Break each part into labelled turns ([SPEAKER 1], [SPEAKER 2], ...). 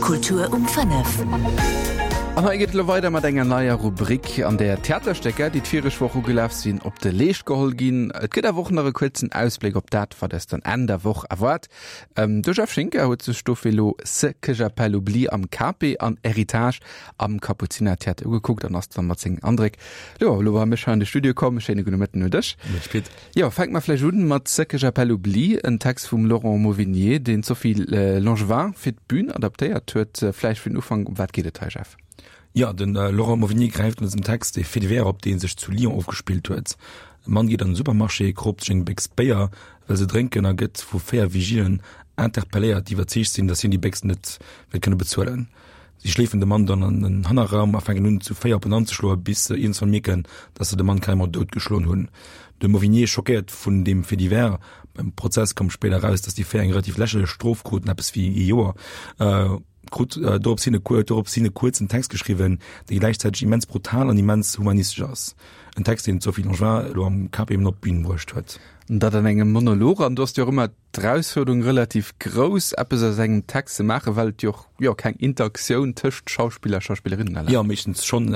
[SPEAKER 1] Kultur um 5.
[SPEAKER 2] An hei geet et elo weider mat enger neier Rubrik, an där Theaterstécker, déi d'vireg Woch ugelaf sinn, op de Leescht geholl ginn. Et gëtt awer och nach e kuerzen Ausbléck op dat, wat eis dann Enn der Woch erwaart. De Jeff Schinker huet sech dofir elo Ce que j'appelle oubli am Cape an Héritage am Kapuzinertheater ugekuckt an ass dann mat sengen Andréck jo elo bei mech hei an de Studio komm. Schéine gudde Mëtten un dech.
[SPEAKER 3] Mëtteg Pit.
[SPEAKER 2] Jo, fänke mer vläicht un mat Ce que j'appelle oubli, en Text vum Laurent Mauvignier, deen d'Sophie Langevin fir d'Bün adaptéiert huet. Vläicht fir den Ufank, ëm wat geet et hei, Jeff?
[SPEAKER 3] Jo, de Laurent Mauvignier gräift an dësem Text e Fait divers op, dee sech zu Lyon ofgespillt huet. E Mann geet an den Supermarché, kroopt sech eng Béchs Béier, wëll se drénken a gëtt vu 4 Vigilen interpelléiert, déi iwwerzeegt sinn, datt hien déi Béchs net wäert kënne bezuelen. Si schleefen de Mann dann an den Hannerraum a fänken un, zu 4 op en anzeschloen, bis se iergendswann mierken, dass se de Mann carrément doutgeschloen hunn. De Mauvignier schockéiert vun deem Fait divers, beim Prozess koum spéider eraus, dass déi 4 eng relativ lächerlech Strof kruten, eppes wéi ee Joer, krut dorops hin dorops hin e kuerzen Text geschriwwen, dee gläichzäiteg immens brutal an immens humanistesch ass. En Text, deen d'Sophie Langevin elo am KP eben op d'Bün bruecht huet.
[SPEAKER 2] Dat an engem Monolog, an du hast jo och ëmmer d'Erausfuerderung relativ grouss, eppes aus engem Text ze maachen, well et jo och, jo, keng Interaktioun tëscht Schauspiller a Schauspillerinnen
[SPEAKER 3] erlaabt. Jo, meeschtens schonn.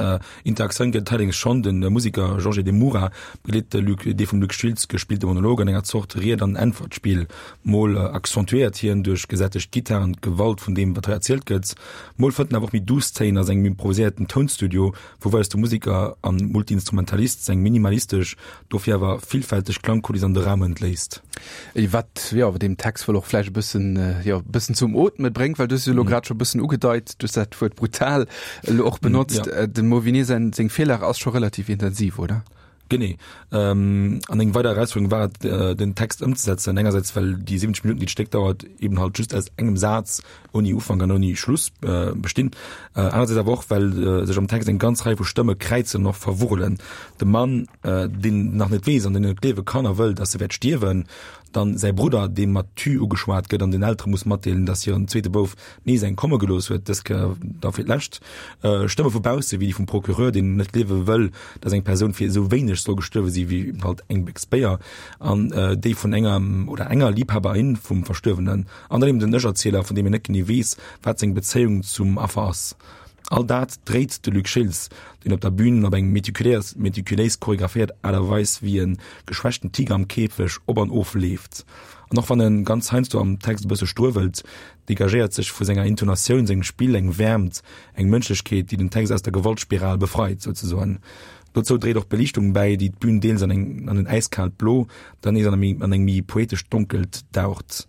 [SPEAKER 3] Interaktioun gëtt et allerdéngs schonn. De Museker Jorge de Moura begleet de Luc, dee vum Luc Schiltz gespillte Monolog an enger Zort Ried an Äntwert-Spill. Mol accentuéiert hien duerch gesättegt Gittaren d'Gewalt vun deem, wat hei erzielt gëtt, mol fënnt en awer och méi duuss Téin a sengem improviséierten Tounstudio, wou weist de Museker an Multiinstrumentalist seng minimalistesch, dofir awer villfälteg Klangkuliss an de Raum entléisst.
[SPEAKER 2] Wat jo awer deem Text wuel och vläicht e bëssen, jo, e bëssen zum Ootme bréngt, well du hues jo elo grad scho e bëssen ugedeit, du hues dat Wuert brutal elo och benotzt. Dem Mauvignier säin, seng Virlag ass scho relativ intensiv, oder?
[SPEAKER 3] Genee. An eng weider Erausfuerderung war et, den Text ëmzesetzen. Engersäits, well déi 70 Minutten, déi d'Stéck dauert, eben halt just aus engem Saz ouni Ufank an ouni Schluss bestinn. Anersäits awer och, well sech am Text eng ganz Rei vu Stëmme kräizen an och verwurrelen. De Mann, deen nach net weess an deen net gleewe kann a wëll, datt e wäert stierwen, dann säi Brudder, dee mat tu ugeschwat gëtt an den Eltere muss matdeelen, datt hiren zweete Bouf nees eng komme gelooss huet, dës Kéier da fir d'lescht. Stëmme vu bausse, wéi déi vum Procureur, deen net gleewe wëll, datt eng Persoun fir esou wéineg soll gestuerwe si wéi halt eng Béchs Béier, an déi vun engem oder enger Liibhaberin vum Verstuerwenen. An dann eben den Ech-Erzieler, vun deem een net genee weess, wat seng Bezéiung zum Affer ass. All dat dréit de Luc Schiltz, deen op der Bün op eng meticuléis, meticuléis choreographéiert Aart a Weis wéi e geschwächten Tiger am Käfeg op an of leeft. An och wann e ganz heiansdo am Text e bësse struewelt, degagéiert sech vu senger Intonatioun, sengem Spill eng Wäermt, eng Mënschlechkeet, déi den Text aus der Gewaltspiral befreit, souzesoen. Dozou dréit och d'Beliichtung bäi, déi d'Bün deels an eng an en äiskaalt Blo, dann nees an an eng méi poetescht Donkelt daucht.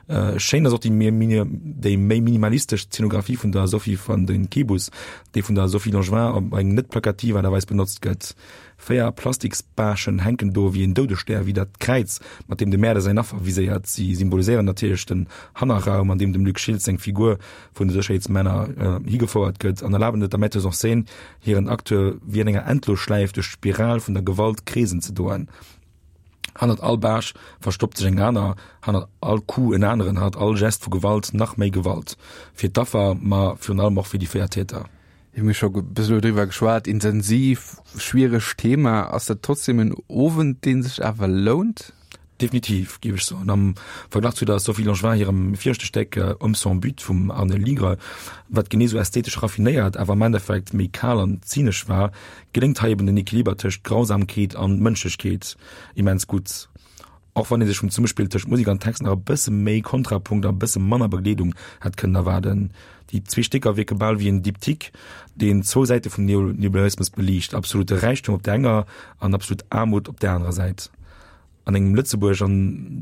[SPEAKER 3] Schéin ass och déi déi méi minimalistesch Zeenografie vun der Sophie van den Kebus, déi vun der Sophie Langevin op eng net plakativ Aart a Weis benotzt gëtt. 4 Plastiksbaaschen hänken do wéi en Doudesstär widder d'Kräiz, mat deem de Mäerder säin Affer viséiert. Si symboliséieren natierlech den Hannerraum, an deem dem Luc Schiltz seng Figur vun de Sécherheetsmänner higefouert gëtt an erlaben et der Metteuse en scène, hiren Acteur wéi an enger Endlosschläif duerch d'Spiral vun der Gewalt kreesen ze doen. Hannert all Baasch verstoppt sech eng aner, hannert all Coup en aneren, hannert all Gest vu Gewalt nach méi Gewalt. Fir d'Affer, ma virun allem och fir déi 4 Täter.
[SPEAKER 2] Mir hu scho e bëssen elo driwwer geschwat, intensiv, schwieregt Thema. Ass dat trotzdem en Owend, dee sech awer lount?
[SPEAKER 3] Definitiv, géif ech soen. Am Verglach zu der Sophie Langevin hirem viregte Stéck Hommes sans but vum Arne Ligre, wat genee sou ästhetesch raffinéiert, awer am Endeffekt méi kal an zynesch war, geléngt hei eben den Equiliber tëscht Grausamkeet an Mënschlechkeet immens gutt. Och wann ee sech vum Zesummespill tëscht Musek an Text nach e bësse méi Kontrapunkt a e bësse manner Begleedung hätt kënnen erwaarden. Déi zwee Stécker wierke bal wéi en Diptyque, deen zwou Säite vum Neoliberalismus beliicht, absolute Räichtum op der enger an absolut Aarmut op der anerer Säit. An engem Lëtzebuerg, an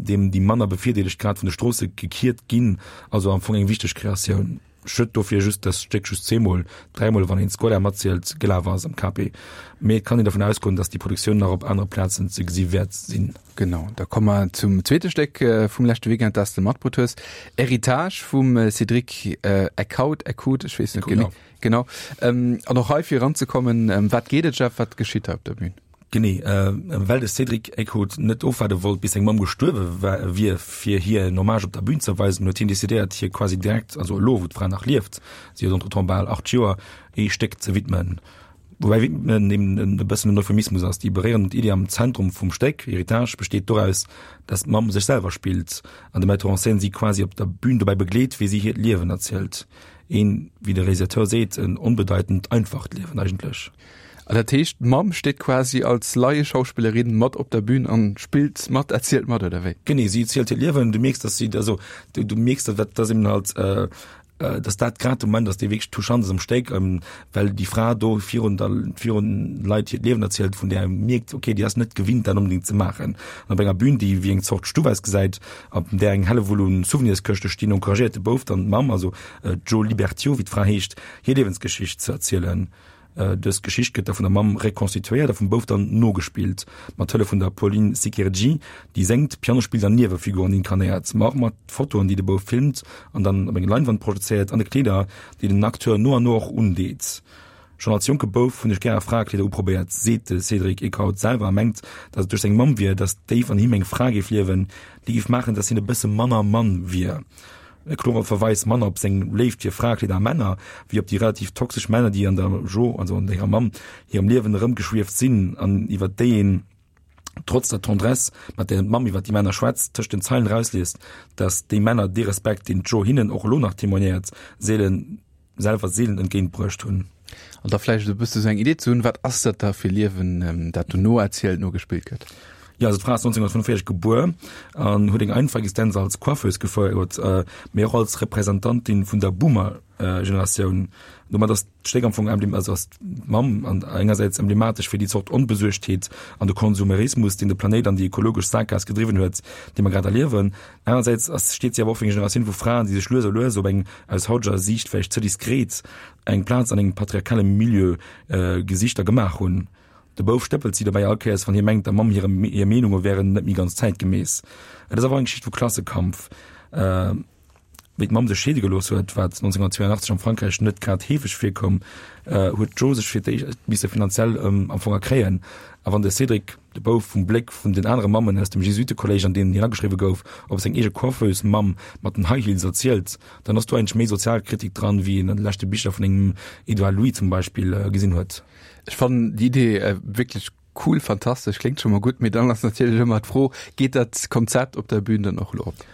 [SPEAKER 3] deem déi manner Bevirdeelegt grad vun de Stroosse gekiert ginn, also am Fong eng wichteg Kreatioun. Schued dofir just, dass d'Stéck just zweemol, dräimol wann een d'Scola matzielt, gelaf ass am KP. Mee et kann een dervun ausgoen, dass déi Produktioun nach op anere Plazen ze gesi wäert sinn.
[SPEAKER 2] Genau, da komme mer zum zweete Stéck vum leschte Weekend, dat s de matbrutt hues, Héritage vum Cédric Eckhout, Eckhout, ech weess net genee. Genau. An och hei fir eranzekommen, ëm wat geet et, Jeff, wat geschitt hei op der Bühn?
[SPEAKER 3] Genee, well de Cédric Eckhout net ofwaarde wollt, bis seng Mamm gestuerwe wier, fir hir en Hommage op der Bühn ze erweisen, huet hien decidéiert, hir quasi direkt, also elo wou d'Fra nach lieft, si huet entretemps bal 8 Joer, ee Stéck ze widmen. Woubäi widmen eben e bëssen en Euphemismus ass. Déi beréierend Iddi am Zentrum vum Stéck, Héritage, besteet doraus, dass d'Mamm sech selwer spillt an de Metteur en scène si quasi op der Bühn dobäi begleet, wéi si hiert Liewen erzielt. Een, wéi de Realisateur seet, en onbedeitend einfacht Liewen eigentlech.
[SPEAKER 2] An dat heescht, d'Mamm steet quasi als Laieschauspillerin mat op der Bühn an spillt mat, erzielt mat, oder wéi?
[SPEAKER 3] Genee, si erzielt hiert Liewen. Du mierks, dass si, also du, du mierks, dass, dass eben halt, dass dat grad de Moment ass, dee wierklech touchant ass am Stéck, well déi Fra do virun der, virun Leit hiert Liewen erzielt, vun där ee mierkt, okay, déi ass net gewinnt, dat onbedéngt ze maachen. An op enger Bühn, déi wéi eng Zort Stuff ausgesäit, op där eng Hellewull un Souvenirskëschte stinn, encouragéiert de Bouf dann d'Mamm, also d'Jo Libertiaux, wéi d'Fra heescht, hir Liewensgeschicht ze erzielen. Dës Geschicht gëtt da vun der Mamm rekonstituéiert a vum Bouf dann nogespillt, mat Hëllef vun der Pauline Sikerji, déi séngt, Piano spillt an Niewefiguren inkarnéiert, ma och mat Fotoen, déi de Bouf filmt an dann op eng Leinwand projezéiert, an de Kleeder, déi den Acteur no an no och undeet. Schonn als jonke Bouf hunn ech gäre Fraekleeder uprobéiert, seet de Cédric Eekhout selwer a mengt, datt et duerch seng Mamm wier, datt déif an him eng Fra géif liewen, déi géif maachen, datt hien e bësse manner Mann wier. E klore Verweis manner op seng Léift fir Fraekleeder a Männer, wéi op déi relativ toxesch Männer, déi an der Jo, also an hirer Mamm, hirem Liewen erëmgeschwieft sinn an iwwer déi een, trotz der Tendresse, mat där d'Mamm iwwer déi Männer schwätzt, tëscht den Zeilen erausliest, datt déi Männer dee Respekt, deen d'Jo hinnen och elo nach témoignéiert, seelen selwer seelen entgéint bruecht hunn.
[SPEAKER 2] An da vläicht e bësse sou eng Idee ze hunn, wat ass dat da fir Liewen, dat do noerzielt, nogespillt gëtt?
[SPEAKER 3] Jo, also d'Fra ass 1945 gebuer an huet eng einfach Existenz als Coiffeuse gefouert, mee och als Representantin vun der Boomer-Generatioun. Domat ass d'Stéck am Fong emblem, also ass d'Mamm an engersäits emblematesch fir déi Zort Onbesuergtheet an de Konsumerismus, deen de Planéit an déi ekologesch Saakgaass gedriwwen huet, déi mer grad erliewen. Anersäits ass, steet si awer och fir eng Generatioun vu Fraen, déi sech lues a lues op eng, aus hauteger Siicht vläicht ze diskret, eng Plaz an engem patriarchale Milieu gesicht a gemaach hunn. De Bouf stëppelt si dobäi all Kéiers, wann hie mengt, der Mamm hire hir Meenunge wären net méi ganz zäitgemäss. Et ass awer och eng Geschicht vu Klassekampf. Wéi d'Mamm sech scheede gelooss huet, wat 1982 am Frankräich net grad heefeg virkoum, huet d'Jo sech fir d'éischt misse finanziell am Fong erkréien. A wann de Cédric, de Bouf, vum Bléck vun den anere Mammen aus dem Jesuitekolléisch, an deen hien ageschriwwe gouf, op seng eege Coiffeuse-Mamm mat den High Heels erzielt, dann ass do eigentlech méi Sozialkritik dran, wéi een an de leschte Bicher vun engem Edouard Louis zum Beispill gesinn huet.
[SPEAKER 2] Ech fannen déi Idee wierklech cool, fantastesch, kléngt scho mol gutt, mee dann ass natierlech ëmmer d'Fro, geet dat Konzept op der Bühn dann och elo op?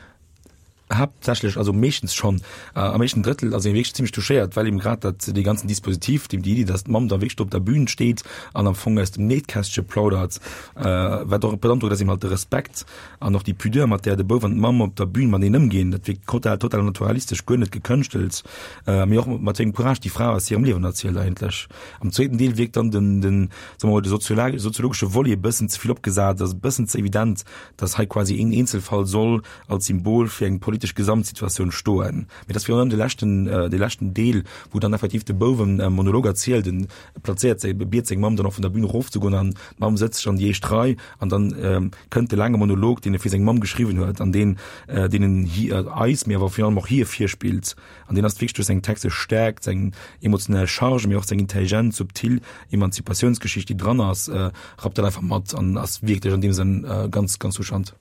[SPEAKER 3] Haaptsächlech, also meeschtens schonn, am éischten Drëttel ass ee wierklech zimmlech touchéiert, well eben grad dat, dee ganzen Dispositif, déi Iddi, datt d'Mamm da wierklech do op der Bühn steet an am Fong aus dem Nähkästche plaudert, wat och beandrockt ass eben halt de Respekt an och déi Pudeur, mat där de Bouf an d'Mamm op der Bühn mateneen ëmginn. Dat wierkt total, total naturalistesch, guer net gekënschtelt, mee och mat wéi engem Courage déi Fra aus hirem Liewen erzielt eigentlech. Am zweeten Deel wierkt dann den, den, soe mer mol, de soziologesche Volet e bëssen ze vill opgesat, ass e bëssen ze evident, datt hei quasi een Eenzelfall soll als Symbol fir eng politesch Gesamtsituatioun stoen. Mee dat ass virun allem de leschten, de leschten Deel, wou dann effektiv de Bouf en Monolog erzielt, en plazéiert seng, biet seng Mamm dann och vun der Bühn erofzegoen an d'Mamm sëtzt sech an déi éischt Rei an dann kënnt de laange Monolog, deen e fir seng Mamm geschriwwen huet an deen, deen en hi, eis, mee awer virun allem och hir virspillt. An deen ass wierklech duerch seng textesch Stäerkt, seng emotionell Charge, mee och seng intelligent, subtil Emanzipatiounsgeschicht, déi dran ass, rappt dat einfach mat an ass wierklech an deem Sënn ganz, ganz touchant.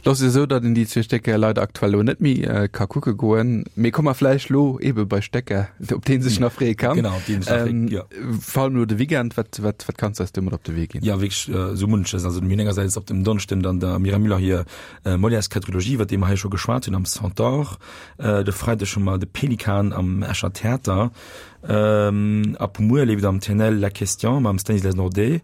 [SPEAKER 2] Lo ass et esou, datt een déi zwee Stécker leider aktuell elo net méi ka kucke goen. Mee komme mer vläicht lo eebe bei Stécker, op déi ee sech nach freeë kann.
[SPEAKER 3] Genau, op déi een sech nach freet, jo.
[SPEAKER 2] Vor allem elo de Weekend, wat, wat, wat kanns du eis do mat op de Wee ginn?
[SPEAKER 3] Jo, wierklech esou munches. Also mir hunn engersäits op dem Donneschden dann der Myriam Müller hir Molières Quadrilogie, iwwer déi mer hei scho geschwat hunn, am Centaure. De Freideg hu mer de Pelikan am Escher Theater. Ab muer leeft am TNL La Question mam Stanislas Nordet.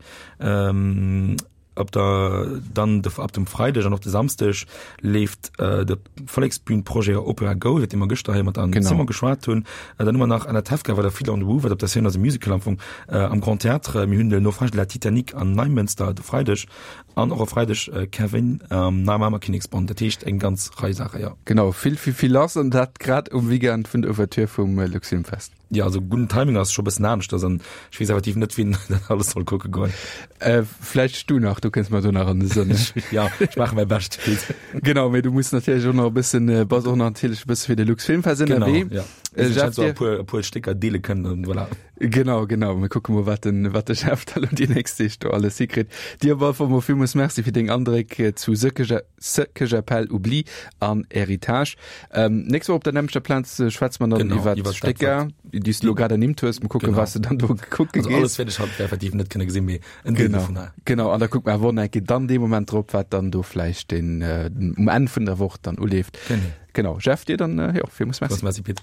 [SPEAKER 3] Op der dann de ab dem Freideg an och de Samsdeg leeft äh, de Volleksbühnprojet Opera Go, iwwer dee mer gëschter hei mat an Simon geschwat hunn. Äh, dann hu mer nach Anatevka war der Fiddler on the Roof, wat op der Scène ass e Musical am Fong äh, am Grand Théâtre. Mir hunn de Naufrage de la Titanic an Neimënster de Freideg an och e Freideg äh, Kevin am Neimamer Kinneksbond. Dat heescht eng ganz Rei Saache,
[SPEAKER 2] ja. Genau, vill, vill, vill lass an dat grad um Weekend vun der Ouverture vum äh, Luxfilmfest.
[SPEAKER 3] Jo, also gudden Timing ass scho bëssen aneschters an ech weess effektiv net, wien dat alles soll kucke goen.
[SPEAKER 2] Äh, vläicht du nach, du kënns mer do nach an de Sënn.
[SPEAKER 3] Ja, ech maache mäi Bescht.
[SPEAKER 2] Genau, mee du muss natierlech och nach e bëssen, äh, bass och nach natierlech e bësse fir de Luxfilmfest
[SPEAKER 3] ënnerwee. Genau, ja. Äh, Jeff, so e puer, e puer Stécker deele kënnen an voilà.
[SPEAKER 2] Genau, genau. Mir kucke mol, wat den, wat de Jeff da lo déi nächst Deeg do alles hikritt. Dir op alle Fall mol villmools Merci fir deng Andréck zu Ce Ce que j'appelle oubli an Héritage. Ähm, nächst Woch op der nämmlechter Plaz äh, schwätze mer dann
[SPEAKER 3] Genau,
[SPEAKER 2] iwwer
[SPEAKER 3] iwwer dat,
[SPEAKER 2] Stécker, déi s du lo grad ernimmt hues. Mal kucken,
[SPEAKER 3] Genau.
[SPEAKER 2] was du dann do kucke
[SPEAKER 3] Also
[SPEAKER 2] gees.
[SPEAKER 3] alles wäert ech halt effektiv net kënne gesinn, mee en Deel
[SPEAKER 2] Genau,
[SPEAKER 3] dovunner.
[SPEAKER 2] genau. An da kuckt mer awer och nach eng Kéier dann dee Moment drop, wat dann do vläicht den, äh, um Enn vun der Woch dann uleeft.
[SPEAKER 3] Genau.
[SPEAKER 2] Genau. Jeff, dir dann, äh, jo, villmools Merci.
[SPEAKER 3] Merci, Pit.